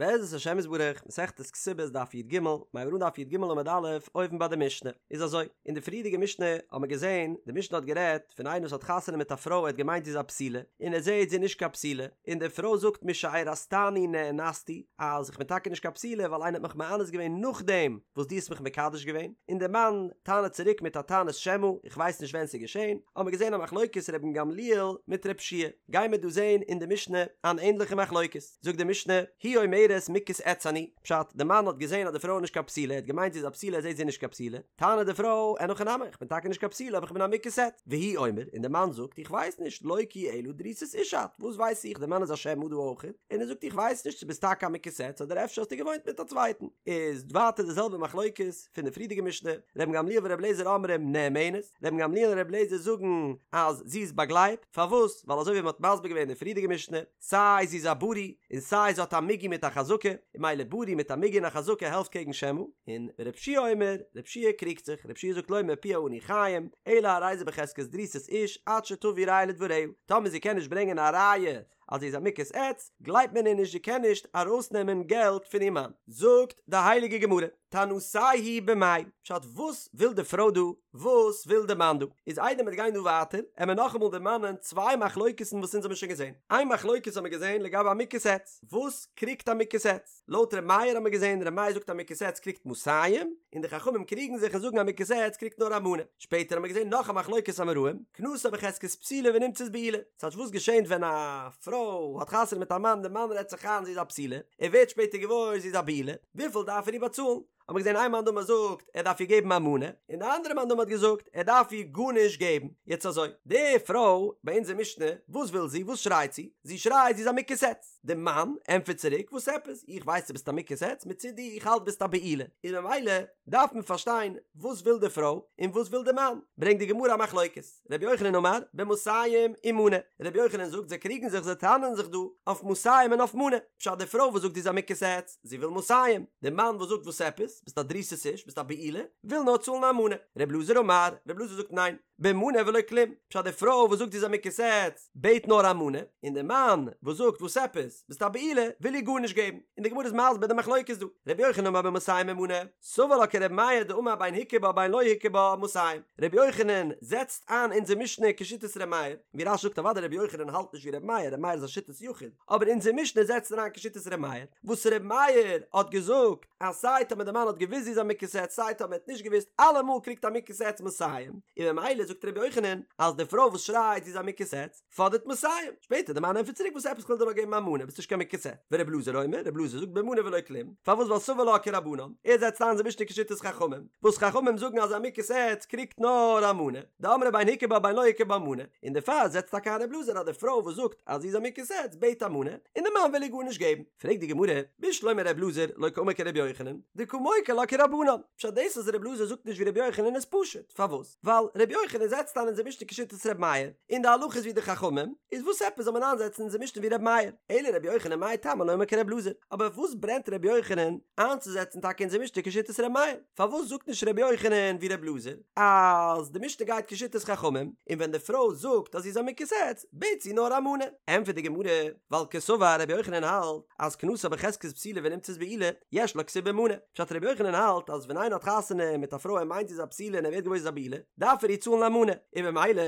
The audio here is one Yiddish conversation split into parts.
בעזרת השם יתברך, מסכת כתובות דף י"ג, מ'הייבט אן דף י"ג עמוד א', אויבן ביי די משנה. איז אזוי, אין די פריערדיגע משנה האט מען געזען, די משנה האט גערעדט פון איינער וואס האט חתונה מיט א פרוי ער האט געמיינט זי איז א בתולה, און ער זעט זי איז נישט קיין בתולה, און די פרוי זאגט משארסתני נאנסתי, אז איך בין טאקע נישט קיין בתולה ווייל איינער האט מיך מאנס געווען נאכדעם וואס דו האסט מיך מקדש געווען, און דער מאן טענה'ט צוריק מיט א טענת שמא, איך ווייס נישט ווען ס'איז געשען, האט מען געזען א מחלוקת רבן גמליאל מיט רב שיע, גייען מיר דא זען אין די משנה אן ענדליכע מחלוקת. זאגט די משנה, היא אומרת מוכת עץ אני, פשט, די מאן האט געזען אז די פרוי איז נישט קיין בתולה, ער האט געמיינט זי איז א בתולה, ער זעט זי איז נישט קיין בתולה, טענה'ט די פרוי, אין הכי נמי, איך בין טאקע נישט קיין בתולה אבער איך בין א מוכת עץ, והוא אומר, און די מאן זאגט, איך ווייס נישט, לא כי אלא דרוסת איש את, וואס ווייס איך, די מאן איז א שמא דא אויך, און ער זאגט איך ווייס נישט צו ביסט טאקע א מוכת עץ אדער אפשר האסטו געוואוינט מיט א צווייטן, איז ווייטער די זעלבע מחלוקת פון די פריערדיגע משנה, רבן גמליאל ור' אליעזר אומרים נאמנת, רבן גמליאל און ר' אליעזר זאגן אז זי איז באגלייבט, פארוואס? ווייל אזוי ווי מען האט מסביר געווען אין די פריערדיגע משנה, סיי זי איז א ברי און סיי זי האט א מיגו מיט א חזקה, און ממילא ברי מיט א מיגו און א חזקה העלפט קעגן שמא, און רב שיע אומר, רב שיע קריגט זיך, רב שיע זאגט לא מפיה אנו חיים, אלא הרי זה בחזקת דרוסת איש עד שתביא ראיה לדבריה, טאמער זי קען נישט ברענגען א ראיה אז זי איז א מוכת עץ, גלייבט מען איר נישט זי קען נישט ארויסנעמען געלט פון איר מאן. זאגט די הייליגע גמרא, טענתייהו במאי, פשט וואס וויל די פרוי דא, וואס וויל די מאן דא? איז איידער מיר גייען דא ווייטער, עמער נאכאמאל דערמאנען צוויי מחלוקת'ן וואס אונז האבן שוין געזען. איין מחלוקת האבן מיר געזען לגבי א מוכת עץ. וואס קריגט א מוכת עץ? לויט ר' מאיר האבן מיר געזען, ר' מאיר זאגט א מוכת עץ קריגט מאתים, און די חכמים קריגן זיך און זאגן א מוכת עץ קריגט נאר א מנה. שפעטער האבן מיר געזען נאך א מחלוקת אמוראים, קנסה בחזקת בתולה ונמצאת בעולה. ס'טייטש וואס געשענט ווען א פרוי האט חתונה מיט א מאן, די מאן רעדט זיך איין זי איז א בתולה, ער ווערט שפעטער געוואויר זי איז א בעולה, וויפיל דארף ער איר באצאלן? האט מען געזען איין מאן דאמר זאגט ער דארף איר געבן א מנה, און די אנדערע מאן דאמר האט געזאגט ער דארף איר גארנישט געבן. יעצט אזוי, די פרוי ביי אונזער משנה, וואס וויל זי? וואס שרייט זי? זי שרייט זי איז א מוכת עץ. די מאן ענטפערט צוריק, וואס עפעס? איך ווייס דו ביסט א מוכת עץ, מצידי איך האלט ביסט א בעולה. איז ממילא דארף מען פארשטיין וואס וויל די פרוי און וואס וויל די מאן. ברענגט די גמרא א מחלוקת. רבי יוחנן אמר, במאתים ומנה, רבי יוחנן זאגט זיי קריגן זיך זיי טענה'ן זיך דא אויף מאתים און אויף מנה, פשט די פרוי וואס זאגט זי איז א מוכת עץ, זי וויל מאתים, די מאן וואס זאגט וואס עפעס, ביסט א דרוסת איש, ביסט א בעולה, וויל נאר צאלן א מנה, רבי אלעזר אמר, רבי אלעזר זאגט ניין, במנה ולא כלום, פשט די פרוי וואס זאגט זי איז א מוכת עץ, בעט נאר א מנה, און די מאן וואס זאגט וואס עפעס, ביסט א בעולה, וויל איר גארנישט געבן, און די גמרא איז מסביר די מחלוקת דא, רבי יוחנן אמר במאתים ומנה, סבר לה כרבי מאיר דאמר בין הכיר בה בין לא הכיר בה מאתים, רבי יוחנן זעצט איין אונזער משנה כשיטת רבי מאיר, ווי רש"י זאגט אוודאי רבי יוחנן האלט נישט ווי רבי מאיר, רבי מאיר איז א שיטת יחיד, אבער אונזער משנה זעצט ער איין כשיטת רבי מאיר, וואס רבי מאיר האט געזאגט אז סיי טאמער די מאן האט געוואוסט זי איז א מוכת עץ סיי טאמער ער האט נישט געוואוסט אלעמאל קריגט א מוכת עץ מאתים, און ממילא זאגט רבי יוחנן אז די פרוי וואס שרייט זי איז א מוכת עץ, פאדערט מאתים, שפעטער די מאן ענטפערט צוריק וואס עפעס כ'וויל דיר נאר געבן א מנה ביסט נישט קיין מוכת עץ, ור' אלעזר אומר, ר' אלעזר זאגט במנה ולא כלום, פארוואס ווייל סבר לה כרבנן, ער זעצט איין אונזער משנה כשיטת חכמים, וואס חכמים זאגן אז א מוכת עץ קריגט נאר א מנה, דאמרי בין הכיר בה בין לא הכיר בה מנה, און דערפאר זעצט טאקע איין ר' אלעזר אז די פרוי וואס זאגט אז זי איז א מוכת עץ בעט א מנה, און די מאן וויל איר גארנישט געבן. פרעגט די גמרא, בשלמא ר' אלעזר לא קאמר כר' יוחנן, דקא מוקי לה כרבנן, פשט דאס אז ר' אלעזר זאגט נישט ווי ר' יוחנן איז פשוט, פארוואס? ווייל ר' יוחנן זעצט איין אונזער משנה כשיטת ר' מאיר, און די הלכה איז ווי די חכמים, איז וואס עפעס זאל מען איינזעצן אונזער משנה ווי ר' מאיר? אלא ר' יוחנן מאי טעמא לא אמר כר' אלעזר, אבער וואס ברענט ר' יוחנן איינצוזעצן טאקע אונזער משנה כשיטת ר' מאיר? פארוואס זאגט נישט ר' יוחנן ווי ר' אלעזר אז די משנה גייט כשיטת חכמים, און ווען די פרוי זאגט אז זי איז א מוכת עץ, בעט זי נאר א מנה? ענטפערט די גמרא, ווייל קסבר ר' יוחנן האלט אז כנסה בחזקת בתולה ונמצאת בעולה, יש לה כתובה מנה. פשט רבי יוחנן האלט אז ווען איינער האט חתונה מיט א פרוי ער מיינט זי איז א בתולה און ער ווערט געוואויר זי איז א בעולה דארף ער איר צאלן א מנה און במילא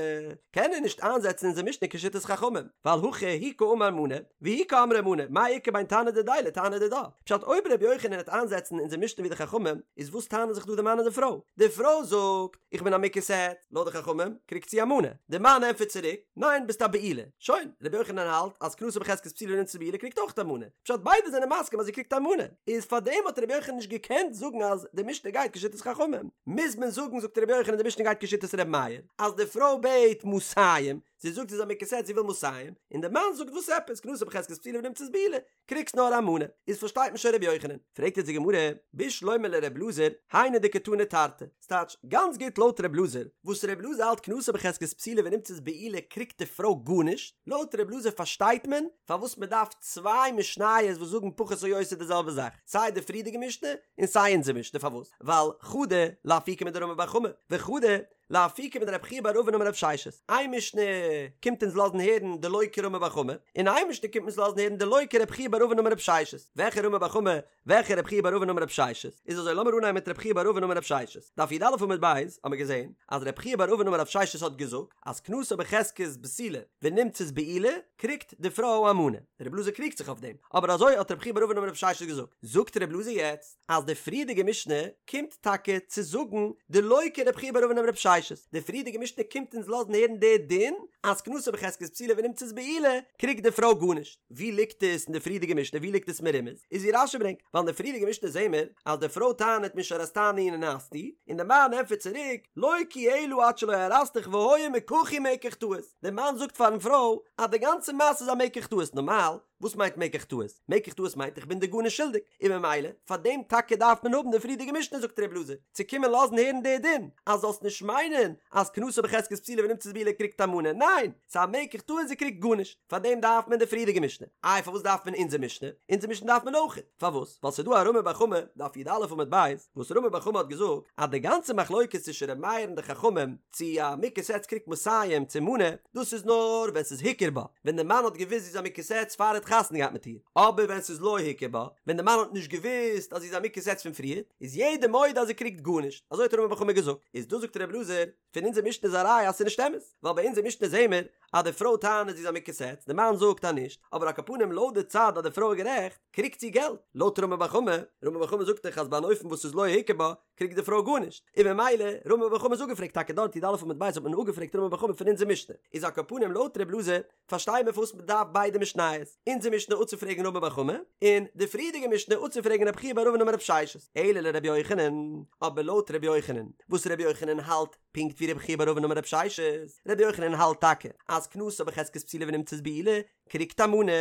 קען ער נישט איינזעצן אונזער משנה כשיטת חכמים ווייל הכא הוא קאמר מנה והיא קאמרה מנה מאי איכא בין תנא דידיה לתנא דידה פשט אויב רבי יוחנן וועט איינזעצן אונזער משנה ווי די חכמים איז וואס טענה'ן זיך דא די מאן און די פרוי די פרוי זאגט איך בין א מוכת עץ לויט די חכמים קריגט זי א מנה די מאן ענטפערט צוריק ניין ביסט א בעולה שוין רבי יוחנן האלט אז כנסה בחזקת בתולה ונמצאת בעולה קריגט אויך א מנה פשט ביידע זענען מסכים אז זי קריגט א מנה, איז פארדעם האט רבי יוחנן נישט געקענט זאגן אז די משנה גייט כשיטת חכמים, מוז מען זאגן זאגט רבי יוחנן די משנה גייט כשיטת רבי מאיר, אז די פרוי בעט מאתים, זי זאגט זי איז א מוכת עץ זי וויל מאתים, און די מאן זאגט וואס עפעס כנסה בחזקת בתולה ונמצאת בעולה, קריגסט נאר א מנה, איז פארשטייט מען שוין רבי יוחנן, פרעגט יעצט די גמרא, בשלמא לר' אלעזר, היינו דקתני תרתי, ס'טייטש, גאנץ גוט לויט ר' אלעזר, וואס ר' אלעזר האלט כנסה בחזקת בתולה ונמצאת בעולה קריגט די פרוי גארנישט, לויט ר' אלעזר פארשטייט מען פארוואס מען דארף צוויי משניות וואס זאגן פחות או יותר די זעלבע זאך, סיי די פריערדיגע משנה און סיי אונזער משנה, פארוואס? ווייל חדא לאפוקי מדרמי בר חמא, וחדא לאפוקי מדרב חייא בר אבין אמר רב ששת, איין משנה. קומט אונז לאזן הערן דלא כרמי בר חמא, און איין משנה קומט אונז לאזן הערן דלא כרב חייא בר אבין אמר רב ששת. וועלכע רמי בר חמא? וועלכע רב חייא בר אבין אמר רב ששת? איז אזוי לאמיר אנהייבן מיט רב חייא בר אבין אמר רב ששת. דף י"א עמוד ב' האמיר געזען אז רב חייא בר אבין אמר רב ששת האט געזאגט אז כנסה בחזקת בתולה ונמצאת בעולה קריגט די פרוי א מנה. רב אלעזר קריגט זיך אויף דעם, אבער אזוי האט רב חייא בר אבין אמר רב ששת געזאגט. זאגט רב אלעזר יעצט אז די פריערדיגע משנה קומט טאקע צו זאגן דלא כרב חייא בר אבין אמר רב ששת, די פריערדיגע משנה קומט אונז לאזן הערן די דין אז כנסה בחזקת בתולה ונמצאת בעולה קריגט די פרוי גארנישט. ווי ליגט עס אין די פריערדיגע משנה? ווי ליגט עס מרומז? איז ווי רש"י ברענגט, ווייל אין די פריערדיגע משנה זעהן מיר אז די פרוי טענה'ט משארסתני נאנסתי, און די מאן ענטפערט צוריק לא כי אלא עד שלא ארסתיך והיה מקחי מקח טעות, די מאן זאגט פארן פרוי אז די גאנצע מעשה איז א מקח טעות, נארמאל וואס מיינט מקח טעות? מקח טעות מיינט איך בין דיר גארנישט שולדיג, און ממילא פאר דעם טאקע דארף מען האבן די פריערדיגע משנה זאגט ר' אלעזר, צו קומען לאזן הערן די דין, אז זאלסט נישט מיינען אז כנסה בחזקת בתולה ונמצאת בעולה קריגט א מנה, ניין! ס'איז א מקח טעות זי קריגט גארנישט, פאר דעם דארף מען די פריערדיגע משנה, איי פארוואס דארף מען אונזער משנה? אונזער משנה דארף מען אויכעט, פארוואס? ווייל ס'איז דא א רמי בר חמא, דף י"א עמוד ב', וואס רמי בר חמא האט געזאגט אז די גאנצע מחלוקת צווישן ר' מאיר און די חכמים צו א מוכת עץ קריגט מאתים צו מנה, דאס איז נאר ווען ס'איז הכיר בה, ווען די מאן האט געוואוסט זי איז א מוכת עץ פאר ער האט חתונה געהאט מיט איר, אבער ווען ס'איז לא הכיר בה, ווען די מאן האט נישט געוואוסט אז זי איז א מוכת עץ פון פריער, איז יעדער מודה אז זי קריגט גארנישט, אזוי האט רמי בר חמא געזאגט, איז דא זאגט ר' אלעזר, פון אונזער משנה איז א ראיה אז ס'איז נישט אמת, ווייל ביי אונזער משנה זעהן מיר אז די פרוי טענה'ט זי איז א מוכת עץ, די מאן זאגט אז נישט, אבער על כל פנים לויט די צד אז די פרוי איז גערעכט, קריגט זי געלט, לויט רמי בר חמא, רמי בר חמא זאגט דאך אז ביי אן אופן וואס איז לא הכיר בה, קריגט די פרוי גארנישט, און ממילא רמי בר חמא איז אפגעפרעגט טאקע דארט י"א עמוד ב' האט מען אפגעפרעגט רמי בר חמא פון אונזער משנה, איז על כל פנים לויט ר' אלעזר פארשטיי מיר פארוואס מען דארף ביידע משניות, אונזער משנה אפצופרעגן רמי בר חמא, און די פריערדיגע משנה אפצופרעגן רב חייא בר אבין אמר רב ששת, אלא לרבי יוחנן, אבער לויט רבי יוחנן, וואס רבי יוחנן האלט פונקט ווי רב חייא בר אבין אמר רב ששת, רבי יוחנן האלט טאקע אז כנסה בחזקת בתולה ונמצאת בעולה קריגט א מנה,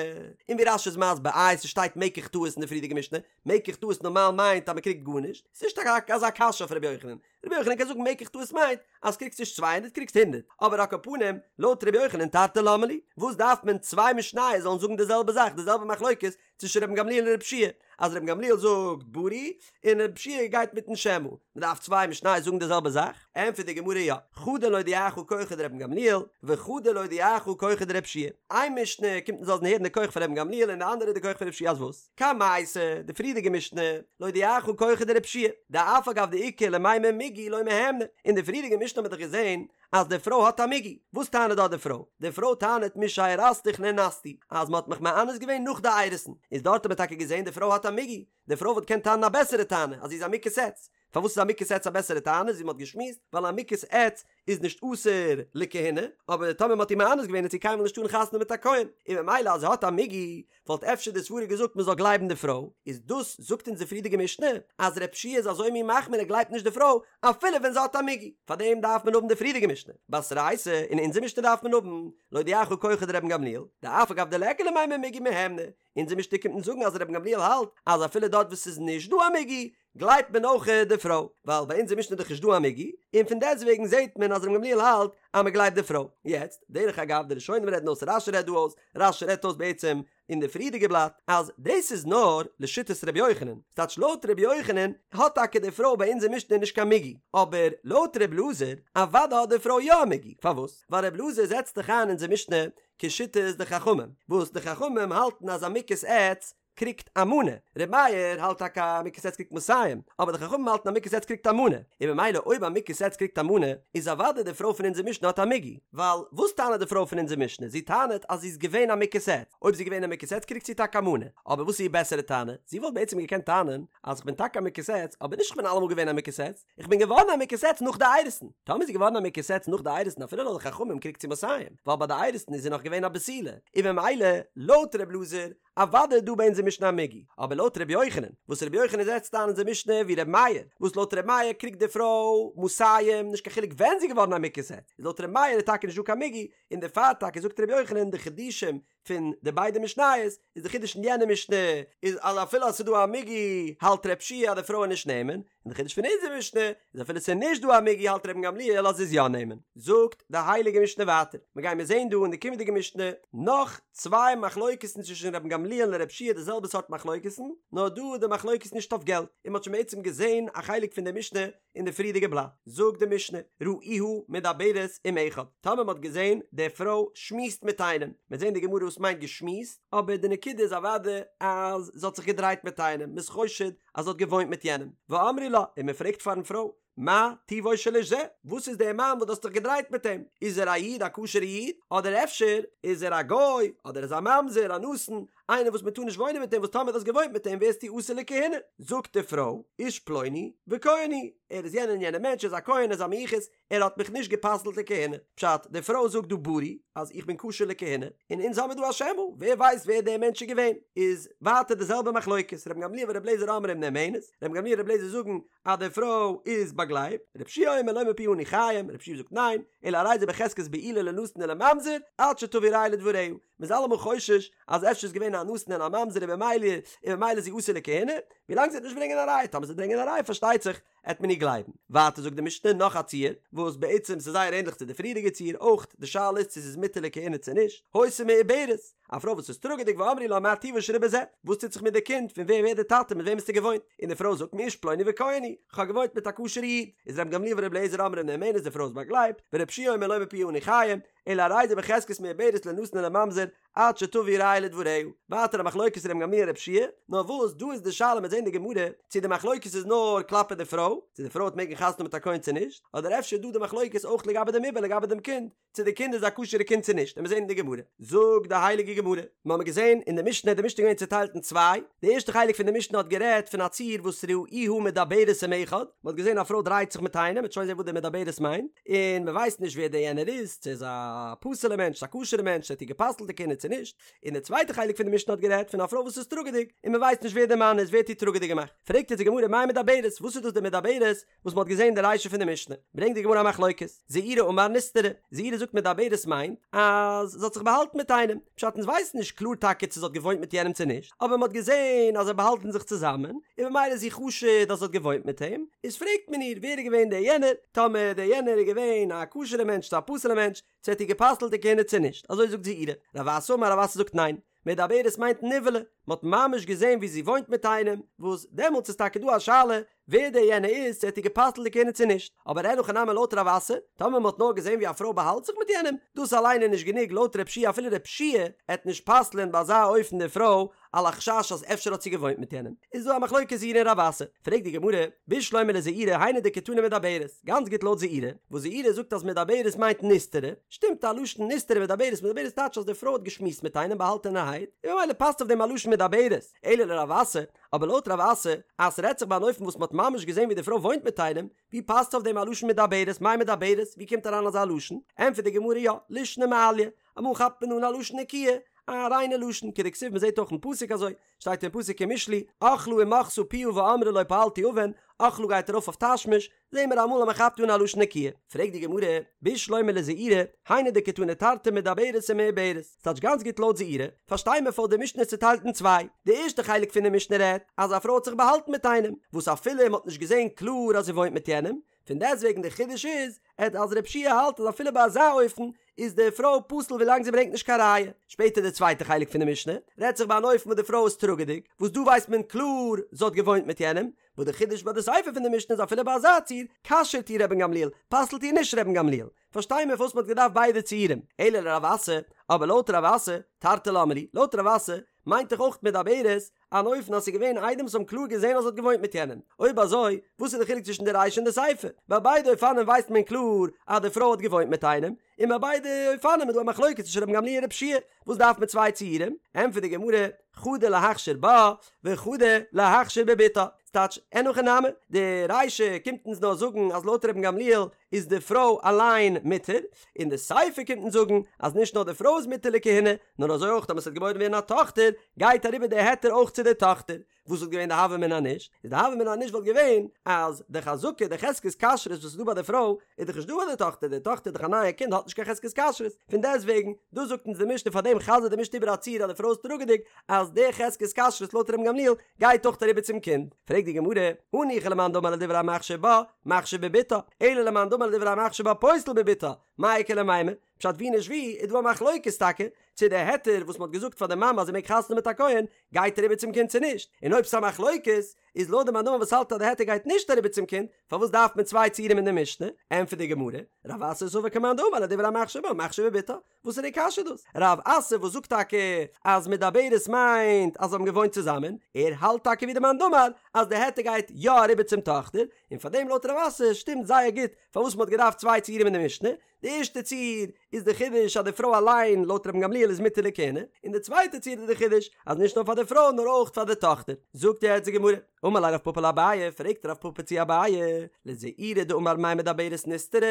און ווי רש"י איז מסביר איי ס'שטייט מקח טעות אין די פריערדיגע משנה, מקח טעות נארמאל מיינט אז מען קריגט גארנישט, ס'נישט אזא קשיא אויף רבי יוחנן, רבי יוחנן קען זאגן מקח טעות מיינט אז קריגסט נישט 200 קריגסט הונדערט, אבער על כל פנים לויט רבי יוחנן תרתי למה לי, וואס דארף מען צוויי משניות זאלן זאגן די זעלבע זאך די זעלבע מחלוקת צווישן רבן גמליאל און רבי יהושע אז רבן גמליאל זאגט ברי און רבי יהושע גייט מיטן שמא, מען דארף צוויי משניות זאגן די זעלבע זאך? ענטפערט די גמרא יא, חדא להודיעך כחו דרבן גמליאל וחדא להודיעך כחו דרבי יהושע איין משנה קומט אונז לאזן הערן די כח פון רבן גמליאל און די אנדערע די כח פון רבי יהושע אז וואס? קמייתא, די פריערדיגע משנה, להודיעך כחו דרבי יהושע דאף על גב דאיכא למימר מיגו לא מהימנא, אין די פריערדיגע משנה האט מען דאך געזען אז די פרוי האט א מיגו, וואס טענה'ט דארט די פרוי? די פרוי טענה'ט משארסתיך נאנסתי, אז מען האט מיך מאנס געווען נאך די אירוסין, איז דארט האט מען טאקע געזען די פרוי האט א מיגו, די פרוי וואלט געקענט טענה'ן א בעסערע טענה אז זי איז א מוכת עץ, פארוואס איז א מוכת עץ א בעסערע טענה ווי מען האט געשמועסט, ווייל א מוכת עץ איז נישט אסור לכהונה, אבער טאמער מען האט איר מאנס געווען וועט זי קיינמאל נישט טארן חתונה מיט א כהן, און ממילא אז זי האט א מיגו וואלט אפשר די סברה געזאגט מען זאל גלייבן די פרוי, איז דאס זאגט אונז די פריערדיגע משנה אז רב שיע איז אזוי מין מחמיר ער גלייבט נישט די פרוי אפילו ווען זי האט א מיגו, פארדעם דארף מען האבן די פריערדיגע משנה, בתרייתא, אין אונזער משנה דארף מען האבן, להודיעך כחו דרבן גמליאל, דאף על גב דליכא למימר מיגו מהימנא, אונזער משנה קומט אונז זאגן אז רבן גמליאל האלט אז אפילו דארט וואס ס'איז נישט דא א מיגו גלייבט מען אויך די פרוי, ווייל ביי אונזער משנה איז דאך נישט דא א מיגו, און פון דעסטוועגן זעט מען אז רבן גמליאל האלט אז מען גלייבט די פרוי. יעצט, דרך אגב, די ראשונים רעדן אויס, רש"י רעדט דא אויס, רש"י רעדט אויס בעצם אין די פריערדיגע בלאט, אז דאס איז נאר לשיטת ר' יוחנן, ס'טייטש לויט ר' יוחנן האט טאקע די פרוי ביי אונזער משנה נישט קיין מיגו, אבער לויט ר' אלעזר, אוודאי האט די פרוי יא א מיגו, פארוואס? ווייל ר' אלעזר זעצט דאך איין אונזער משנה כשיטת די חכמים, וואס די חכמים האלטן אז א מוכת עץ קריגט א מנה, ר' מאיר האלט טאקע א מוכת עץ קריגט מאתים, אבער די חכמים האלטן א מוכת עץ קריגט א מנה, און ממילא אויב א מוכת עץ קריגט א מנה, איז אוודאי די פרוי פון אונזער משנה האט א מיגו, ווייל וואס טענה'ט די פרוי פון אונזער משנה, זי טענה'ט אז זי איז געווען א מוכת עץ, אויב זי איז געווען א מוכת עץ קריגט זי טאקע א מנה, אבער וואס איז איר בעסערע טענה, זי וואלט בעצם געקענט טענה'ן אז כ'בין טאקע א מוכת עץ, אבער נישט כ'בין אלעמאל געווען א מוכת עץ, איך בין געווארן א מוכת עץ נאך די אירוסין, טאמער איז זי געווארן א מוכת עץ נאך די אירוסין אפילו לויט די חכמים קריגט זי מאתים, ווייל ביי די אירוסין איז זי נאך געווען א בתולה, און ממילא לויט ר' אלעזר אוודאי איז דא ביי אונזער משנה א מיגו, אבער לויט ר' יוחנן, וואס ר' יוחנן זעצט איין אונזער משנה ווי ר' מאיר, וואס לויט ר' מאיר קריגט די פרוי מאתים נישט קיין חילוק ווען זי איז געווארן א מוכת עץ, איז לויט ר' מאיר איז טאקע נישט דא קיין מיגו, און דערפאר טאקע זאגט ר' יוחנן די חידושים. פון די ביידע משניות, איז די חידוש אין יענע משנה איז אז אפילו אז ס'איז דא א מיגו האלט ר' יהושע אז די פרוי איז נישט נאמן, און די חידוש פון אונזער משנה איז אפילו ס'איז נישט דא א מיגו האלט רבן גמליאל אז זי איז יא נאמן. זאגט די הייליגע משנה ווייטער, מ'גיימיר זעהן דא אין די קומענדיגע משנה נאך צוויי מחלוקת'ן צווישן רבן גמליאל און ר' יהושע די זעלבע סארט מחלוקת'ן, נאר דא איז די מחלוקת נישט אויף געלט, און מ'האט שוין בעצם געזעהן א חלק פון די משנה אין די פריערדיגע בלאט זאגט די משנה ראוה מדברת עם אחד, טאמער מ'האט געזען די פרוי שמועסט מיט איינעם, מ'וועט זען די גמרא וואס מיינט געשמועסט, אבער די נקודה איז אוודאי אז זי האט זיך געדרייט מיט איינעם, מ'איז חושד אז זי האט געוואוינט מיט יענעם, ואמרו לה, און מ'פרעגט פארן פרוי, מה טיבו של איש זה, וואס איז דער מאן וואס דו האסט דיך געדרייט מיט אים, איז ער א איד א כשר'ע איד, אדער אפשר איז ער א גוי, אדער איז א ממזר, א נתין, איינער וואס מען טאר נישט וואוינען מיט אים וואס טאמער דו האסט געוואוינט מיט אים ווערסטו אסור לכהונה, זאגט די פרוי, איש פלוני וכהן הוא, ער איז יענער און יענער מענטש, ער איז א כהן, ער איז א מיוחס, ער האט מיך נישט גע'פסל'ט לכהונה. פשט, די פרוי זאגט דא ברי אז איך בין כשר לכהונה, און אונז האמיר דא א שמא, ווער ווייסט ווער דער מענטש איז געווען. איז ווייטער די זעלבע מחלוקת, רבן גמליאל ורבי אליעזר אומרים נאמנת, רבן גמליאל און רבי אליעזר זאגן אז די פרוי איז באגלייבט, רבי יהושע אומר לא מפיה אנו חיים, רבי יהושע זאגט ניין, אלא הרי זה בחזקת בעילה לנתין ולממזר, עד שתביא ראיה לדבריה, מ'איז אלעמאל חושש אז אפשר איז געווען א נתין און א ממזר און במילא און במילא איז זי אסור לכהונה, ווילאנג זי וועט נישט ברענגען א ראיה, טאמער זי וועט ברענגען א ראיה פארשטייט זיך עט מען איר גלייבן. ווייטער זאגט די משנה נאך א ציור, וואס בעצם ס'איז זייער ענדליך צו די פריערדיגע ציור, אויך די שאלה איז צו זי איז מותר לכהונה צו נישט, היתה מעוברת, א פרוי וואס איז טראגעדיג ואמרו לה מה טיבו של עובר זה, וואס טוט זיך מיט די קינד, פון ווער ווערט די טאטע מיט וועם האסטו געוואוינט, און די פרוי זאגט מאיש פלוני וכהן הוא, כ'האב געוואוינט מיט א כשר'ע איד, איז רבן גמליאל ור' אליעזר אומרים נאמנת די פרוי איז באגלייבט, ור' יהושע אומר לא מפיה אנו חיים, אלא הרי זה בחזקת מעוברת לנתין ולממזר עד שתביא ראיה לדבריה. ווייטער א מחלוקת רבן גמליאל ר' יהושע, נאר וואס דא איז די שאלה מ'עט זעהן די גמרא צו די מחלוקת איז נאר כלפי די פרוי, צו די פרוי וועט מעגן חתונה מיט א כהן צו נישט, אדער אפשר איז דא די מחלוקת אויך לגבי דעם עובר לגבי דעם קינד, צו די קינד איז א כשר'ע קינד צו נישט, עמיר זעהן אין די גמרא. זאגט די הייליגע גמרא, מיר האבן געזעהן אין די משנה, די משנה איז געווען צוטיילט אין צוויי, די ערשטע חלק פון די משנה האט גערעדט פון א ציור וואס ראוה מדברת עם אחד, מען האט געזען א פרוי דרייט זיך מיט איינעם, מ'וועט שוין זען וואס די מדברת מיינט, און מען ווייסט נישט ווער דער יענער איז, צו ער איז א פסול'ער מענטש, צו א כשר'ער מענטש, צו ער האט איר גע'פסל'ט לכהונה צו נישט, און די צווייטע חלק פון די משנה האט גערעדט פון א פרוי וואס איז טראגעדיג, און מען ווייסט נישט ווער דער מאן איז, ווער האט איר טראגעדיג געמאכט. פרעגט יעצט די גמרא מאי מדברת, וואס איז דאס די מדברת וואס מען האט געזען די רישא פון די משנה? ברענגט די גמרא א מחלוקת, זעירי אמר נסתרה, זעירי זאגט מדברת מיינט אז זי האט זיך באהאלטן מיט איינעם, פשט אונז ווייסן נישט קלאר טאקע צו זי האט געוואוינט מיט יענעם צו נישט, אבער מען האט געזען אז זיי באהאלטן זיך צוזאמען, און במילא איז זי חשוד אז זי האט געוואוינט מיט אים, איז פרעגט מען איר ווער איז געווען דער יענער, טאמער דער יענער איז געווען א כשר'ע מענטש צו א פסול'ע מענטש, צו האט איר גע'פסל'ט לכהונה צו נישט, אזוי זאגט זעירי. רב אסי אמר רב אסי זאגט ניין, מדברת מיינט נבעלה, מען האט ממש געזען ווי זי וואוינט מיט איינעם, וואס דעמאלטס איז טאקע דא א שאלה ווער דער יענער איז, צו ער האט איר גע'פסל'ט לכהונה צו נישט, אבער אין הכי נמי לויט רב אסי, טאמער מען האט נאר געזען ווי א פרוי באהאלט זיך מיט יענעם, דאס אליין איז נישט גענוג לויט ר' יהושע אפילו ר' יהושע עט נישט פסל'ען ביי אזא אופן די פרוי על החשש אז אפשר האט זי געוואוינט מיט יענעם, איז דא א מחלוקת זעירי און רב אסי, פרעגט די גמרא, בשלמא לזעירי היינו דקתני מדברת, גאנץ גוט לויט זעירי, וואס זעירי זאגט אז מדברת מיינט נסתרה, שטימט א לשון נסתרה מדברת, מדברת טייטש אז די פרוי האט געשמועסט מיט איינעם באהאלטענערהייט, און ממילא פאסט אויף דעם א לשון מדברת, אלא לרב אסי, אבער לויט רב אסי, אז ס'רעדט זיך ביי אן אופן וואס מ'האט ממש געזען ווי די פרוי וואוינט מיט איינעם, ווי פאסט אויף דעם א לשון מדברת, מאי מדברת, ווי קומט אריין אזא לשון? ענטפערט די גמרא יא, לישנא מעליא, אמאל כאפט מען אן א לשון נקיה, א ריינע לשון, כדכתיב מ'זעט אויך אין פסוק אזוי, שטייט אין פסוק אין משלי, אכלה ומחתה פיה ואמרה לא פעלתי און, אכלה גייט ארויף אויף תשמיש, זעהן מיר אמאל אז מ'כאפט אן א לשון נקיה. פרעגט די גמרא, בשלמא לזעירי, היינו דקתני תרתי מדברת ומעוברת, ס'טייטש גאנץ גוט לויט זעירי, פארשטיי מיר פארוואס די משנה איז צוטיילט אין צוויי, די ערשטע חלק פון די משנה רעדט אז א פרוי האט זיך באהאלטן מיט איינעם, וואס אפילו מ'האט נישט געזעהן קלאר אז זי וואוינט מיט יענעם, פון דעסטוועגן די חידוש איז עט אז ר' יהושע האלט אז אפילו ביי אזא אופן איז די פרוי פסול ווילאנג זי ברענגט נישט קיין ראיה. שפעטער די צווייטע חלק פון די משנה רעדט זיך ביי אן אופן וואס די פרוי איז טראגעדיג, וואס דא ווייסט מען קלאר זי האט געוואוינט מיט יענעם, וואס די חידוש ביי די סיפא פון די משנה איז אפילו ביי אזא ציור כשר'ט איר רבן גמליאל, פסל'ט איר נישט רבן גמליאל. פארשטיי מיר פארוואס מען האט געדארפט ביידע ציורים. אלא לרב אסי, אבער לויט רב אסי, תרתי למה לי, לויט רב אסי מיינט דאך אויך מדברת אן אופן אז ס'איז געווען עדים וואס האבן קלאר געזען אז זי האט געוואוינט מיט יענעם. אויב אזוי, וואס איז די חילוק צווישן די רישא און די סיפא? ביי ביידע אופנים ווייסט מען קלאר אז די פרוי האט געוואוינט מיט איינעם, און ביי ביידע אופנים איז דא א מחלוקת צווישן רבן גמליאל און ר' יהושע, וואס דארף מען צוויי ציורים? ענטפערט די גמרא, חדא להכשיר בה, וחדא להכשיר בבתה. ס'טייטש, אין הכי נמי, די רישא קומט אונז נאר זאגן אז לויט רבן גמליאל איז די פרוי אליין מותר, און די סיפא קומט אונז זאגן אז נישט נאר די פרוי איז מותר לכהונה, נאר אזוי אויך טאמער ס'וועט געבוירן ווערן א טאכטער, גייט אריבער די היתר אויך. צו די טאכטער. וואס וואלט געווען די הוה אמינא נישט? איז די הוה אמינא נישט וואלט געווען אז די חזקה, די חזקת כשרות וואס איז דא ביי די פרוי, איז דאך נישט דא ביי די טאכטער, די טאכטער איז דאך א נייע קינד האט נישט קיין חזקת כשרות, פון דעסט וועגן, דא זאגט אונז די משנה פאר דעם חזר'ט די משנה איבער א ציור אז די פרוי איז טראגעדיג, אז די חזקת כשרות לויט רבן גמליאל גייט אויך אריבער צום קינד. פרעגט די גמרא, הניחא למאן דאמר לדברי המכשיר בה, מכשיר בבתה, אלא למאן דאמר לדברי המכשיר בה פוסל בבתה, מאי איכא למימר? פשט ווי נישט ווי איז דא א מחלוקת טאקע צו די היתר וואס מ'האט געזאגט פאר די מאמע אז זי מעג חתונה האבן מיט א כהן גייט אריבער צום קינד צו נישט, און אויב ס'איז א מחלוקת איז לויט די מאן דאמר וואס האלט אז די היתר גייט נישט אריבער צום קינד פארוואס דארף מען צוויי ציורים אין די משנה? ענטפערט די גמרא, רב אסי סבר כמאן דאמר לדברי המכשיר בה מכשיר בבתה, וואס איז די קשיא דאס? רב אסי וואס זאגט טאקע אז מדברת מיינט אז זיי האבן געוואוינט צוזאמען, ער האלט טאקע ווי די מאן דאמר אז די היתר גייט יא אריבער צום טאכטער, און פארדעם לויט רב אסי שטימט זייער גוט פארוואס מ'האט געדארפט צוויי ציורים אין די משנה, די ערשטע ציור איז די חידוש אז די פרוי אליין לויט רבן גמליאל איז מותר לכהונה, און די צווייטע ציור איז די חידוש אז נישט נאר פאר די פרוי נאר אויך פאר די טאכטער. זאגט יעצט די גמרא, אמר ליה רב פפא לאביי, פרעגט רב פפא צו אביי, לזעירא דאמר מאי מדברת נסתרה,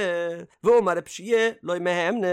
והאמר רב יהושע לא מהימנא,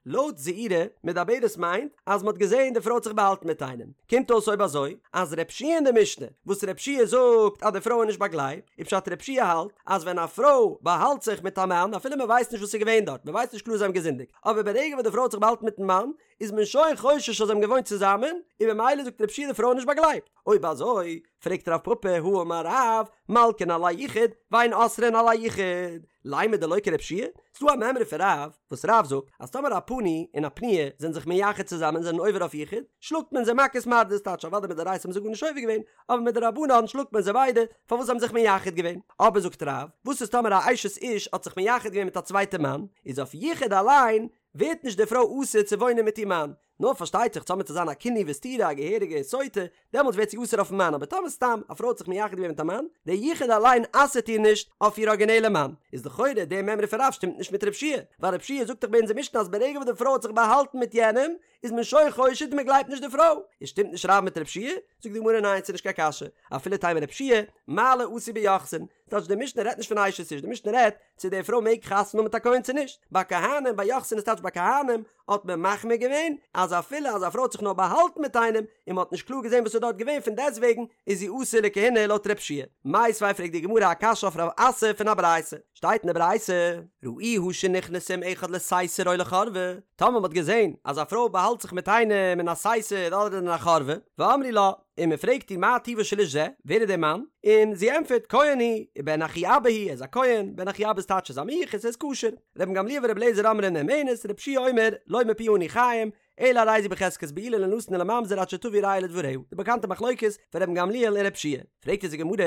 לויט זעירא, מדברת מיינט אז מ'האט געזען די פרוי האט זיך באהאלטן מיט איינעם. קומט אויס אויב אזוי אז רב יהושע אין די משנה, וואס רב יהושע זאגט אז די פרוי איז נישט באגלייבט, איז פשט רב יהושע האלט אז ווען א פרוי באהאלט זיך מיט א מאן אפילו מ'ווייסט נישט וואס איז געווען דארט, מ'ווייסט נישט קלאר זיי האבן געזינדיגט, אבער ברגע וואס די פרוי האט זיך באהאלטן מיטן מאן איז מען שוין חושש אז זיי האבן געוואוינט צוזאמען, און במילא זאגט רב יהושע די פרוי איז נישט באגלייבט. אויב אזוי, פרעגט רב פפא, הא אמר רב, מלקין על היחוד, ואין אוסרין על היחוד, לימא דלא כרב יהושע? ס'דא א מימרא פון רב, וואס רב זאגט, אז טאמער א פנוי און א פנויה זענען זיך מייחד צוזאמען און זענען עובר אויף יחוד, שלאגט מען זיי מכות מרדות, טייטש אוודאי מדאורייתא האבן זיי גארנישט עובר געווען, אבער מדרבנן שלאגט מען זיי ביידע, פארוואס זיי האבן זיך מייחד געווען. אבער זאגט רב, וואס איז טאמער א אשת איש האט זיך מייחד געווען מיט א צווייטע מאן, איז אויף יחוד אליין ווערט נישט די פרוי אסור צו וואוינען מיט איר מאן, נאר פארשטייט זיך טאמער צו זיין א קינוי וסתירה א געהעריגע סוטה, דעמאלטס ווערט זי אסור אויפן מאן, אבער טאמער סתם א פרוי האט זיך מייחד געווען מיט א מאן, דער יחוד אליין אסר'ט איר נישט אויף איר ארגינעלע מאן, איז לכאורה די מימרא פון רב שטימט נישט מיט רב יהושע, ווייל רב יהושע זאגט דאך ביי אונזער משנה אז ברגע וואס די פרוי האט זיך באהאלטן מיט יענעם, איז מען שוין חושד און מען גלייבט נישט די פרוי, איז שטימט נישט רב מיט רב יהושע? זאגט די גמרא ניין ס'איז נישט קיין קשיא, אפילו תימא רב יהושע, מעלה עשו ביוחסין, טייטש די משנה רעדט נישט פון אשת איש, די משנה רעדט צו די פרוי מעג חתונה האבן מיט א כהן צו נישט, ביי כהנים ביי יוחסין איז טייטש ביי כהנים האט מען מחמיר געווען אז אפילו אז א פרוי האט זיך נאר באהאלטן מיט איינעם און מען האט נישט קלאר געזען וואס איז דארט געווען פון דעסטוועגן איז זי אסור לכהונה לויט רב יהושע. מיתיבי פרעגט די גמרא א קשיא אויף רב אסי פון א ברייתא, שטייט אין די ברייתא, ראוה שנכנסה עם אחד לסתר או לחורבה, טאמער מען האט געזען אז א פרוי באהאלט זיך מיט איינעם אין א סתר אדער אין א חורבה, ואמרו לה, און מען פרעגט איר מה טיבו של איש זה, ווער איז דער מאן? און זי ענטפערט, כהן הוא, ובן אחי אבא הוא, ער איז א כהן, בן אחי אבא איז טייטש ער איז א מיוחס, ער איז כשר. רבן גמליאל ורבי אליעזר אומרים נאמנת, רבי יהושע אומר, לא מפיה אנו חיים, אלא הרי זו בחזקת בעולה לנתין ולממזר עד שתביא ראיה לדבריה, די באקאנטע מחלוקת פון רבן גמליאל און רבי יהושע. פרעגט אונז די גמרא,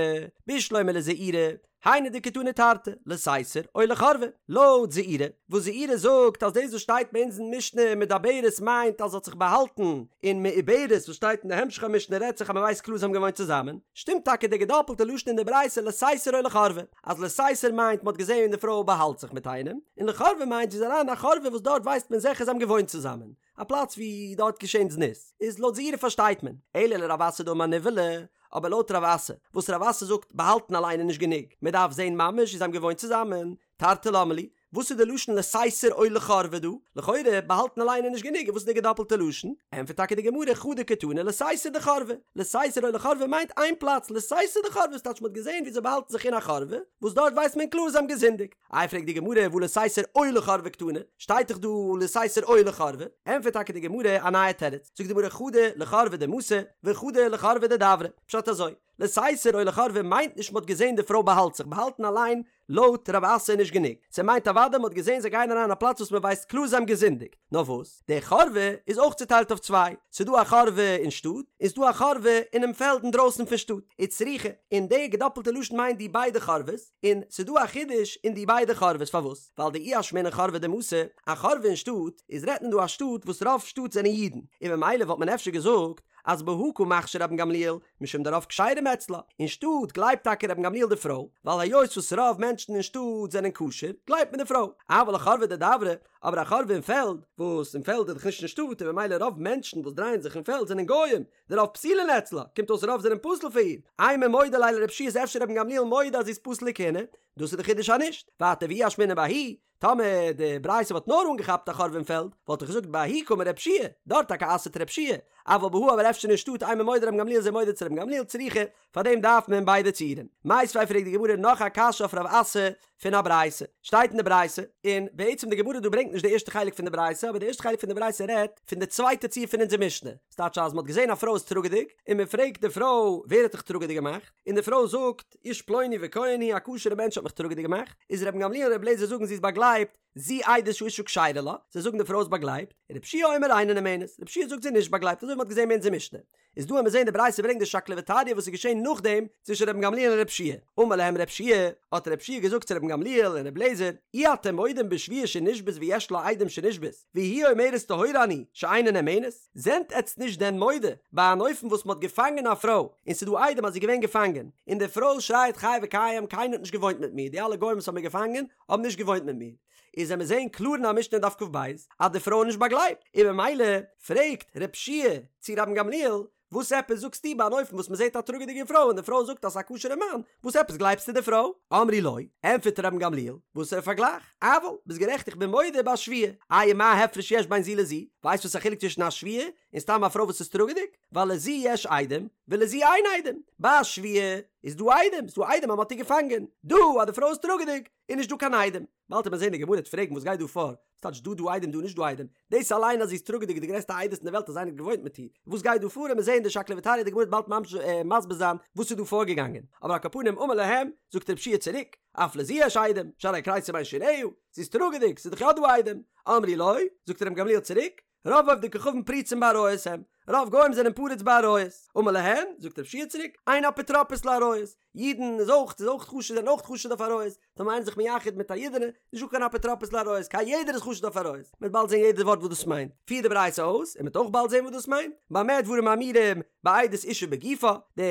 בשלמא לזעירא, היינו דקתני תרתי, לסתר או לחורבה, לויט זעירא, וואס זעירא זאגט אז דאס וואס שטייט ביי אונז אין משנה מדברת מיינט אז זי האט זיך באהאלטן, און מעוברת וואס שטייט אין די המשך המשנה רעדט זיך אז מען ווייסט קלאר זיי האבן געוואוינט צוזאמען, שטימט טאקע די געדאפלטע לשון אין די ברייתא לסתר או לחורבה, אז לסתר מיינט מען האט געזען ווי די פרוי באהאלט זיך מיט איינעם, און לחורבה מיינט זי איז אריין אין א חורבה וואס דארט ווייסט מען זיכער זיי האבן געוואוינט צוזאמען, א פלאץ ווי דארט געשען זנות, איז לויט זעירא פארשטייט מען, אלא לרב אסי דאמר נבעלה, אבער לויט רב אסי, וואס רב אסי זאגט באהאלטן אליין איז נישט גענוג, מען דארף זען ממש ווי זיי האבן געוואוינט צוזאמען, תרתי למה לי, וואס איז די לשון לסתר או לחורבה דא? לכאורה באהאלטן אליין איז נישט גענוג, וואס איז די געדאפלטע לשון? ענטפערט טאקע די גמרא חדא קתני לסתר דחורבה, לסתר או לחורבה מיינט איין פלאץ, לסתר דחורבה ס'טייטש מען האט געזען ווי זיי באהאלטן זיך אין א חורבה, וואס דארט ווייסט מען קלאר זיי האבן געזינדיגט. איי פרעגט די גמרא והא לסתר או לחורבה קתני, שטייט דאך דא לסתר או לחורבה, ענטפערט טאקע די גמרא א נייע תירוץ, זאגט די גמרא חדא לחורבה דמתא וחדא לחורבה דדברא, פשט אזוי, לסתר או לחורבה מיינט נישט מ'האט געזען די פרוי באהאלט זיך, באהאלטן אליין לויט רב אסי איז נישט גענוג, ס'מיינט אוודאי מ'האט געזען זיי גייען אריין אין א פלאץ וואס מ'ווייסט קלאר זיי האבן געזינדיגט, נאר וואס, די חורבה איז אויך צוטיילט אויף צוויי, ס'דא א חורבה אין שטאט, און ס'דא א חורבה אינעם פעלד אינדרויסן פון שטאט, וצריכא, און די געדאפלטע לשון מיינט די ביידע חורבות, און ס'דא א חידוש אין די ביידע חורבות פארוואס? ווייל דאי אשמעינן חורבה דמתא, א חורבה אין שטאט, איז רעדט מען דא א שטאט וואס רוב שטאט זענען אידן, און ממילא וואלט מען אפשר געזאגט אז בהא קא מכשיר רבן גמליאל משום דרוב כשרים אצלה, אין שטאט גלייבט טאקע רבן גמליאל די פרוי, ווייל היות וואס רוב מענטשן אין שטאט זענען כשר, גלייבט מען די פרוי, אבל לחורבה דדברא, אבער א חורבה אין פעלד, וואס אין פעלד איז דאך נישט אין שטאט און ממילא רוב מענטשן וואס דרייען זיך אין פעלד זענען גוים, דרוב פסולין אצלה, קומט אויס רוב זענען פסול פאר איר, אימא מודה ליה לרב יהושע איז אפשר רבן גמליאל מודה אז זי איז פסול לכהונה, דאס איז די חידוש אז נישט, ווייטער ואי אשמעינן בההיא. טאמער די ברייתא וואלט נאר אנגעכאפט א חורבה אין פעלד, וואלט איך געזאגט בההיא קאמר רב שיע, דארט טאקע אסר'ט רב שיע, אבל בהא אבער אפשר אין שטאט אימא מודה רבן גמליאל זיי מודה צו רבן גמליאל צריכא, פארדעם דארף מען ביידע ציורים. מיתיבי פרעגט די גמרא נאך א קשיא אויף רב אסי פון א ברייתא. שטייט אין די ברייתא, און בעצם די גמרא דא ברענגט נישט די ערשטע חלק פון די ברייתא, אבער די ערשטע חלק פון די ברייתא רעדט פון די צווייטע ציור פון אונזער משנה. ס'טייטש אז מ'האט געזען א פרוי איז טראגעדיג, און מ'פרעגט די פרוי ווער האט דיך טראגעדיג געמאכט? און די פרוי זאגט, איש פלוני וכהן הוא, א כשר'ע מענטש האט מיך טראגעדיג געמאכט. איז רבן גמליאל און רבי אליעזר זאגן זי איז באגלייבט, זו עדות שהאשה כשרה לה, זיי זאגן די פרוי איז באגלייבט, רבי יהושע אומר אינה נאמנת, רבי יהושע זאגט זי איז נישט באגלייבט אזוי ווי מ'האט געזען אין אונזער משנה. איז דא וועלן מיר זעהן די ברייתא ברענגט די שקלא וטריא וואס איז געשעהן נאכדעם צווישן רבן גמליאל און רב שיע, אמר להם רב שיע, האט רב שיע געזאגט צו רבן גמליאל און רב לעזער, אי אתם מודים בשבויה שנשבית ויש לה עדים שנשבית, והיא אומרת טהורה אני, שאינה נאמנת? זענט עטץ נישט דען מודה ביי אן אופן וואס מ'האט געפאנגען א פרוי און ס'איז דא עדים אז זי איז געווען געפאנגען, און די פרוי שרייעט חי וקיים קיינער האט נישט געוואוינט מיט מיר, די אלע גוים וואס האבן מיר געפאנגען האבן נישט געוואוינט מיט מיר. איז וועלן מיר זעהן קלאר אין א משנה אין דף כ"ב אז די פרוי איז נישט באגלייבט, און ממילא פרעגט רב שיע צו רבן גמליאל, וואס עפעס זאגסטו ביי אן אופן וואס מען זעהט א טראגעדיגע פרוי און די פרוי זאגט אז ס'איז א כשר'ע מאן, וואס עפעס גלייבסטו די פרוי? אמרו לו, ענטפערט רבן גמליאל, וואסערע פארגלייך? אבל, ביסט גערעכט איך בין מודה בשבויה, איי מה הפרש יש בין זו לזו, ווייסט וואס א חילוק צווישן א שבויה און סתם א פרוי וואס איז טראגעדיג? ווייל לזו יש עדים ולזו אין עדים, ביי א שבויה איז דא עדים, ס'איז דא עדים אז מ'האט איר געפאנגען, דא אז די פרוי איז טראגעדיג איז נישט דא קיין עדים. באלד וועט מען זען די גמרא וועט פרעגן וואס גייט דא פאר, וואס טייטש דא דא עדים דא נישט דא עדים, דאס אליין אז זי איז טראגעדיג איז די גרעסטע עדות אין די וועלט אז איינער האט געוואוינט מיט איר, וואס גייט דא פאר וועט מען זען די שקלא וטריא די גמרא וועט באלד ממש מסביר זיין וואס איז דא פארגעגאנגען, אבער על כל פנים אמר להם, זאגט רב שיע צוריק, אף לזו יש עדים, שהרי כריסה בין שיניה, זי איז טראגעדיג, ס'איז דאך יא דא עדים, אמרו לו, זאגט רבן גמליאל צוריק, רוב עובדי כוכבים פרוצים בעריות הם, רוב גוים זענען פרוץ בעריות, אמר להן, זאגט רב שיע צוריק, אין אפוטרופוס לעריות, אידן איז אויך, איז אויך חשוד, זענען אויך חשוד אויף עריות, טאמער איינער איז זיך מייחד מיט א אידענע, נישט דא קיין אפוטרופוס לעריות, קיין יעדער איז חשוד אויף עריות, מ'וועט באלד זען יעדע ווארט וואס דאס מיינט, פירט די ברייתא אויס, און מ'וועט אויך באלד זען וואס דאס מיינט, במה דברים אמורים, בעדות אישה בגופה, די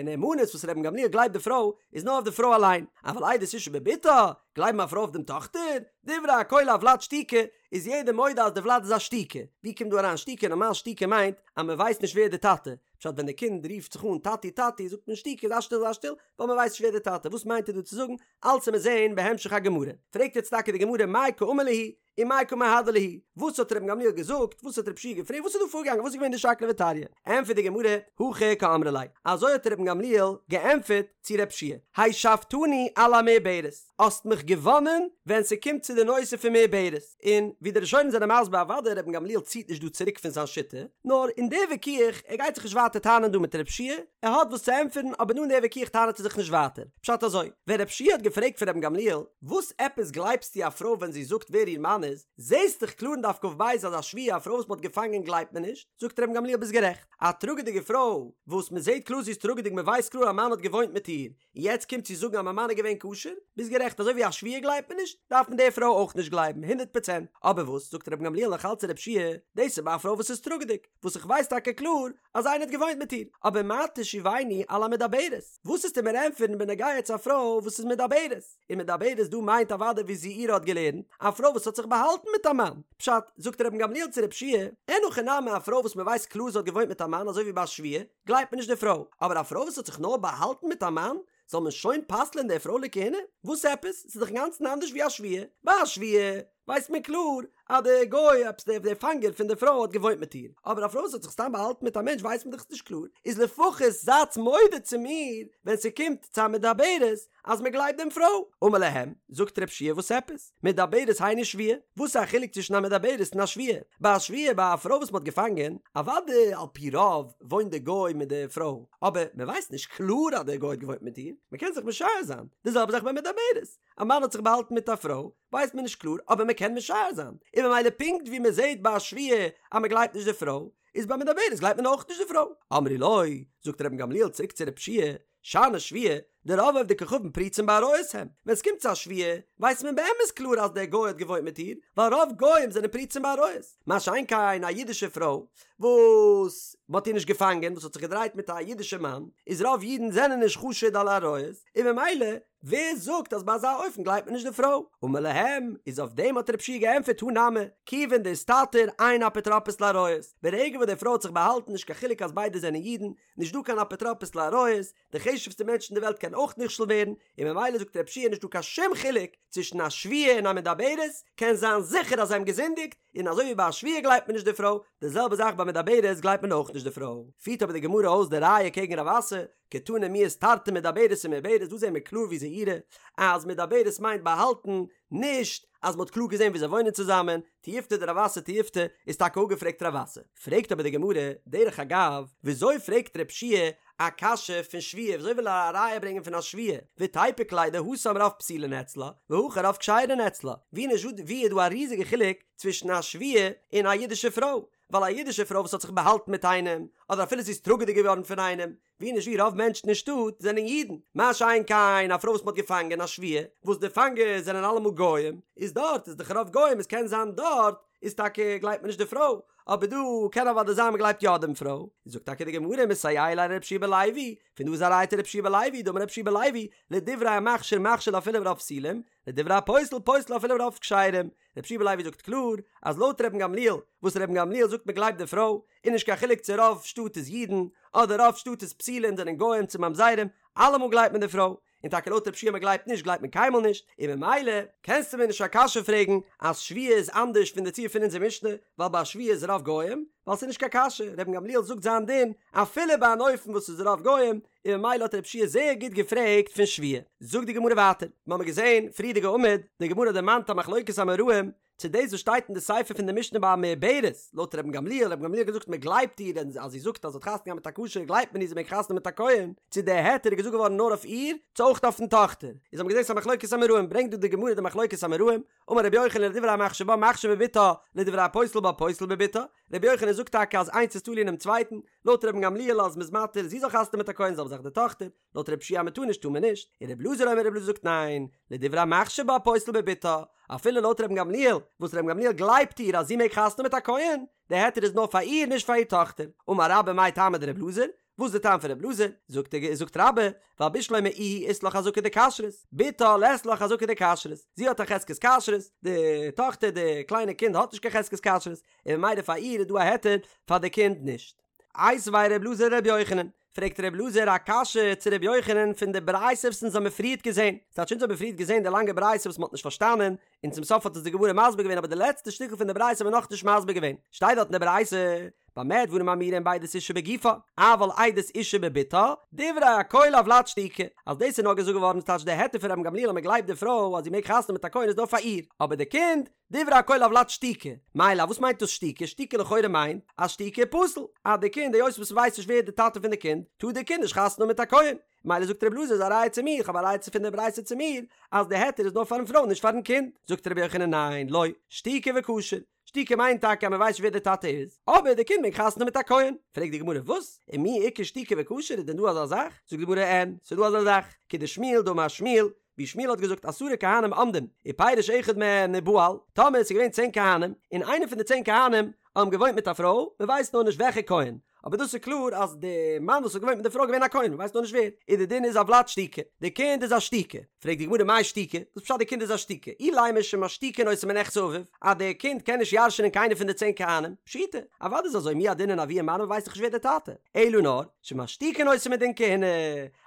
נאמנות וואס רבן גמליאל גלייבט די פרוי, איז נאר אויף די פרוי אליין, אבל עדות אישה בבתה, גלייבן א פרוי אויף דעם טאכטער, דברי הכל הולד שתוקי, איז יעדער מודה אז די ולד איז א שתוקי. ווי קומט דא אריין שתוקי? נארמאל שתוקי מיינט אז מען ווייסט נישט ווער די טאטע. פשט ווען די קינד רופט זיך אן טאטי טאטי זאגט מען שתוקי זיי שטיל זיי שטיל ווייל מען ווייסט נישט ווער די טאטע. וואס מיינט ער דא צו זאגן? אלץ וועט מען זעהן בהמשך הגמרא. פרעגט יעצט טאקע די גמרא מאי קאמר להו ומאי קא מהדר להו? וואס האט רבן גמליאל געזאגט? וואס האט רב שיע געפרעגט? וואס איז דא פארגעגאנגען? וואס איז געווען די שקלא וטריא? ענטפערט די גמרא הכי קאמרי ליה. אזוי האט רבן גמליאל געענטפערט צו רב שיע השבתני על המעוברת. האסט מיך געוואנען ווען ס'קומט צו די נושא פון מעוברת, און ווי די ראשונים זענען מסביר אוודאי רבן גמליאל ציט נישט דא צוריק פון זיין שיטה, נאר אין די וויכוח, ער גייט זיך נישט ווייטער טענה'ן דא מיט רב שיע, ער האט וואס צו ענטפערן אבער דא אין די וויכוח טענה'ט ער זיך נישט ווייטער. פשט אזוי, ווען רב שיע האט געפרעגט פון רבן גמליאל, וואס עפעס גלייבסטו א פרוי ווען זי זאגט ווער איר מאן איז, זעסט דאך קלאר אין דף כ"ב אז א שבויה א פרוי וואס מ'האט געפאנגען גלייבט מען נישט, זאגט רבן גמליאל ביסט גערעכט, א טראגעדיגע פרוי וואס מ'זעט קלאר זי איז טראגעדיג מ'ווייסט קלאר א מאן האט געוואוינט מיט איר, און יעצט קומט זי זאגן אז מיין מאן איז געווען כשר? ביסט גערעכט אזוי ווי א שבויה גלייבט מען נישט, דארף מען די פרוי אויך נישט גלייבן, הונדערט פראצענט. אבער וואס זאגט רבן גמליאל נאך אלץ צו רב שיע, דאס איז ביי א פרוי וואס איז טראגעדיג, וואס איך ווייס טאקע קלאר אז איינער האט געוואוינט מיט איר, אבער מה תשיבני על המדברת, וואס וועסטו מיר ענטפערן בנוגע צו א פרוי וואס איז מדברת? און מדברת דא מיינט אוודאי ווי זעירא האט געלערנט, א פרוי וואס האט זיך באהאלטן מיט א מאן. פשט, זאגט רבן גמליאל צו רב שיע, אין הכי נמי א פרוי וואס מען ווייסט קלאר זי האט געוואוינט מיט א מאן אזוי ווי ביי א שבויה, גלייבט מען נישט די פרוי, אבער א פרוי וואס האט זיך נאר באהאלטן מיט א מאן, זאל מען שוין פסל'ען די פרוי לכהונה? וואס עפעס? ס'איז דאך אינגאנצן אנדערש ווי א שבויה. ביי א שבויה ווייסט מען קלאר אז די גוי, עפעס דער דער פאנגער פון די פרוי האט געוואוינט מיט איר, אבער א פרוי וואס האט זיך סתם באהאלטן מיט א מענטש ווייסט מען דאך נישט קלאר, איז לפחות זייטס מודה צו מיר ווען ס'קומט צו א מדברת אז מען גלייבט דעם פרוי. אמר להם, זאגט רב שיע וואס עפעס? מדברת היינו שבויה, וואס איז א חילוק צווישן א מדברת און א שבויה? ביי א שבויה, ביי א פרוי וואס מען האט געפאנגען, אוודאי על פי רוב וואוינט די גוי מיט די פרוי, אבער מען ווייסט נישט קלאר אז דער גוי האט געוואוינט מיט איר, מען קען זיך משער זיין, די זעלבע זאך ביי מדברת, א מאן האט זיך באהאלטן מיט א פרוי, ווייסט מען נישט קלאר, אבער מען קען משער זיין, און ממילא פונקט ווי מען זעט ביי א שבויה אז מען גלייבט נישט די פרוי, איז ביי מדברת גלייבט מען אויך נישט די פרוי. אמרו לו, זאגט רבן גמליאל צוריק צו רב שיע, שאני שבויה, דרוב עובדי כוכבים פרוצים בעריות הם, ווען ס'קומט צו א שבויה, ווייסט מען באמת קלאר אז דער גוי האט געוואוינט מיט איר, ווייל רוב גוים זענען פרוצים בעריות, מה שאין כן א אידישע פרוי, וואס מ'האט איר נישט געפאנגען, וואס האט זיך געדרייט מיט א אידישע מאן, איז רוב אידן זענען נישט חשוד על עריות, און ממילא ווער זאגט אז ביי אזא אופן גלייבט מען נישט די פרוי? אמר להם, איז אויף דעם האט רב שיע געענטפערט הא נמי, כיוון דאיסתתר אין אפוטרופוס לעריות, ברגע וואס די פרוי האט זיך באהאלטן נישט קיין חילוק אז ביידע זענען אידן, נישט דא קיין אפוטרופוס לעריות, די חשובסטע מענטש אין די וועלט קען אויך נכשל ווערן, און ממילא זאגט רב שיע נישט דא קיין שום חילוק צווישן א שבויה און א מדברת, קען זיין זיכער אז זיי האבן געזינדיגט, און אזוי ווי ביי א שבויה גלייבט מען נישט די פרוי, די זעלבע זאך ביי מדברת גלייבט מען אויך נישט די פרוי. פירט אבער די גמרא אויס די ראיה קעגן רב אסי, קתני מיהת תרתי מדברת ומעוברת, דא זעהן מיר קלאר ווי זעירא אז מדברת מיינט באהאלטן, נישט אז מ'האט קלאר געזעהן ווי זיי וואוינען צוזאמען, תיובתא דרב אסי תיובתא איז טאקע אפגעפרעגט רב אסי. פרעגט אבער די גמרא, דרך אגב, וויאזוי פרעגט רב שיע א קשיא פון שבויה, וויאזוי וויל ער א ראיה ברענגען פון א שבויה, ותיפוק ליה דהתם רוב פסולין אצלה, והכא רוב כשרין אצלה, ווי נישט ווי איז דא א ריזיגע חילוק צווישן א שבויה און א אידישע פרוי, ווייל א אידישע פרוי וואס האט זיך באהאלטן מיט איינעם, אדער אפילו זי איז טראגעדיג געווארן פון איינעם, ווי נישט ווי רוב מענטשן אין שטאט זענען אידן, מה שאין כן א פרוי וואס מ'האט געפאנגען א שבויה, וואס די פאנגערס זענען אלעמאל גוים, איז דארט איז דאך רוב גוים, עס קען זיין דארט איז טאקע גלייבט מען נישט די פרוי, אבער דא קען אוודאי זיין מ'גלייבט יא דעם פרוי, זאגט טאקע די גמרא מסייע ליה לרבי יהושע בן לוי, פון דא איז א ראיה צו רבי יהושע בן לוי, דאמר רבי יהושע בן לוי, לדברי המכשיר מכשיר אפילו ברוב פסולים, לדברי הפוסל פוסל אפילו ברוב כשרים, רבי יהושע בן לוי זאגט קלאר אז לויט רבן גמליאל וואס רבן גמליאל זאגט מען גלייבט די פרוי איז נישט קיין חילוק צו רוב שטאט איז אידן אדער רוב שטאט איז פסולים זענען גוים צו ממזרים אלעמאל גלייבט מען די פרוי און טאקע לויט רב שיע מען גלייבט נישט גלייבט מען קיינמאל נישט און ממילא קענסטו מיר נישט א קשיא פרעגן אז שבויה איז אנדערש פון די ציור פון אונזער משנה ווייל ביי שבויה איז רוב גוים ווייל ס'איז נישט קיין קשיא רבן גמליאל זאגט זיין דין אפילו ביי אן אופן וואס איז רוב גוים און ממילא האט רב שיע זייער גוט געפרעגט פון שבויה. זאגט די גמרא ווייטער, מיר האבן געזען פריערדיגע עמוד, די גמרא דערמאנט א מחלוקת אמוראים, צו דאס וואס שטייט אין די סיפא פון די משנה ביי א מעוברת, לויט רבן גמליאל, רבן גמליאל האט געזאגט מען גלייבט איר, און אז זי זאגט אז זי האט חתונה געהאט מיט א כשר גלייבט מען איר זי מעג חתונה מיט א כהן, צו די היתר איז געזאגט געווארן נאר אויף איר, צו אויך אויפן טאכטער. איז האבן געזען ס'איז א מחלוקת אמוראים, ברענגט דא די גמרא די מחלוקת אמוראים, אמר רבי יוחנן לדברי המכשיר בה מכשיר בבתה, לדברי הפוסל בה פוסל בבתה, רבי יוחנן זאגט טאקע אז איינס איז תלוי אינעם צווייטן, לויט רבן גמליאל אז מ'איז מתיר זי זאל חתונה מיט א כהן זעלבע זאך די טאכטער, לויט רבי יהושע אז מ'טאר נישט טאר מען נישט, און רבי אלעזר אומר רבי אלעזר זאגט ניין, לדברי המכשיר בה פוסל בבתה, אפילו לויט רבן גמליאל, וואס רבן גמליאל גלייבט איר אז זי מעג חתונה מיט א כהן, די היתר איז נאר פאר איר נישט פאר איר טאכטער, אמר רבה מאי טעמא דרבי אלעזר, וואס איז די טעם פון רבי אלעזר? זאגט ער זאגט רבה, ווייל בשלמא איהי אית לה חזקה דכשרות, בתה לית לה חזקה דכשרות, זי האט א חזקת כשרות, די טאכטער די קליינע קינד האט נישט קיין חזקת כשרות, און ממילא פאר איר איז דא א היתר, פאר די קינד נישט. איתיביה ר' אלעזר לר' יוחנן, פרעגט ר' אלעזר א קשיא צו ר' יוחנן פון די ברייתא וואס אונז האמיר פריערט געזען, ס'טייטש אונז האמיר פריערט געזען די לאנגע ברייתא וואס מ'האט נישט פארשטאנען, און צום סוף האט עס די גמרא מסביר געווען אבער די לעצטע שטיקל פון די ברייתא האמיר נאכנישט מסביר געווען, שטייט דארט אין די ברייתא, במה דברים אמורים בעדות אישה בגופה, אבל עדות אישה בבתה, דברי הכל הולד שתוקי, אז דאס איז נאר געזאגט געווארן ס'טייטש די היתר פון רבן גמליאל אז מ'גלייבט די פרוי אז זי מעג חתונה מיט א כהן איז נאר פאר איר, אבער די קינד, דברי הכל הולד שתוקי, מאי לאו וואס מיינט דאס שתוקי? שתוקי לכאורה מיינט אז שתוקי פסול, אז די קינד היות וואס מ'ווייסט נישט ווער די טאטע פון די קינד, טאר די קינד נישט חתונה האבן מיט א כהן, מילא זאגט רבי אלעזר איז א ראיה צו מיר, כ'האב א ראיה צו פון די ברייתא צו מיר, אז די היתר איז נאר פארן פרוי נישט פארן קינד, זאגט רבי יוחנן ניין, לא, שתוקי וכשר, שתוקי מיינט טאקע אז מ'ווייסט נישט ווער די טאטע איז, אבער די קינד מעג חתונה האבן מיט א כהן, פרעגט די גמרא וואס? ומי איכא שתוקי וכשר איז דען דא אזא זאך? זאגט די גמרא אין, ס'איז דא אזא זאך, כדשמואל דאמר שמואל, ווי שמואל האט געזאגט עשרה כהנים עומדים ופירש אחד מהן ובעל, טאמער עס איז געווען צען כהנים, און איינער פון די צען כהנים האבן געוואוינט מיט א פרוי, מען ווייסט נאר נישט וועלכע כהן, אבער דאס איז קלאר אז די מאן וואס האט געוואוינט מיט די פרוי איז געווען א כהן, מען ווייסט נאר נישט ווער, איז די דין איז הולד שתוקי, די קינד איז א שתוקי, פרעגט די גמרא מאי שתוקי, וואס פשט די קינד איז א שתוקי, אילימא שמשתיקין אותו מנכסי אביו, אז די קינד קען נישט ירש'נען קיינער פון די צען כהנים, פשיטא, אוודאי איז אזוי מי ידעינן אבוה מנו מען ווייסט דאך נישט ווער די טאטע, אלא נאר, שמשתיקין אותו מדין כהונה,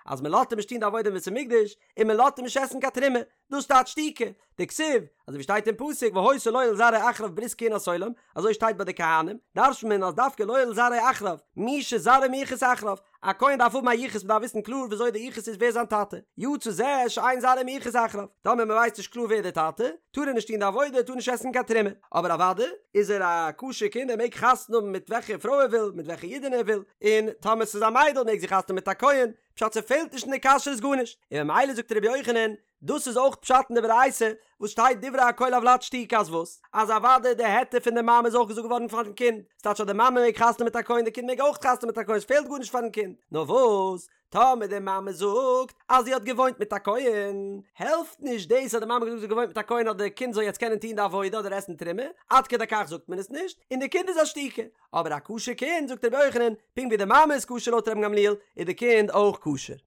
אז מען לאזט אים נישט טון די עבודה אין בית המקדש, און מען לאזט אים נישט עסן קיין תרומה, דאס טייטש שתוקי, דכתיב, אזוי ווי שטייט אין פסוק והיתה לו ולזרעו אחריו ברית כהונת עולם, אזוי שטייט ביי די כהנים, דרש'נט מען אז דווקא לו ולזרעו אחריו, מי שזרעו מיוחס אחריו, א כהן דארף האבן א יחוס מען דארף וויסן קלאר וויאזוי די יחוס איז ווער זיין טאטע, יצא זה שאין זרעו מיוחס אחריו, טאמער מען ווייסט נישט קלאר ווער די טאטע, טאר ער נישט טון די עבודה, טאר נישט עסן קיין תרומה, אבער אוודאי איז ער א כשר קינד ער מעג חתונה האבן מיט וועלכע פרוי ער וויל, מיט וועלכע אידענע ער וויל, און טאמער ס'איז א מיידל מעג זי חתונה מיט א כהן, פשט ס'פעלט נישט אין די כשרות גארנישט, און ממילא זאגט ר' יוחנן, דאס איז אויך פשט אין די ברייתא וואס שטייט דברי הכל הולד שתוקי אז וואס? אז אוודאי די היתר פון די מאמע איז אויך געזאגט געווארן פארן קינד, ס'טייטש אז די מאמע מעג חתונה מיט א כהן די קינד מעג אויך חתונה מיט א כהן ס'פעלט גארנישט פארן קינד, נאר וואס? טאמער די מאמע זאגט אז זי האט געוואוינט מיט א כהן, העלפט נישט דאס אז די מאמע האט געזאגט זי האט געוואוינט מיט א כהן אז די קינד זאל יעצט קענען טון די עבודה אדער עסן תרומה, עד כדי כך זאגט מען עס נישט, און די קינד איז א שתוקי. אבער א כשר קינד, זאגט רבי יוחנן, פונקט ווי די מאמע איז כשר לויט רבן גמליאל, איז די קינד אויך כשר.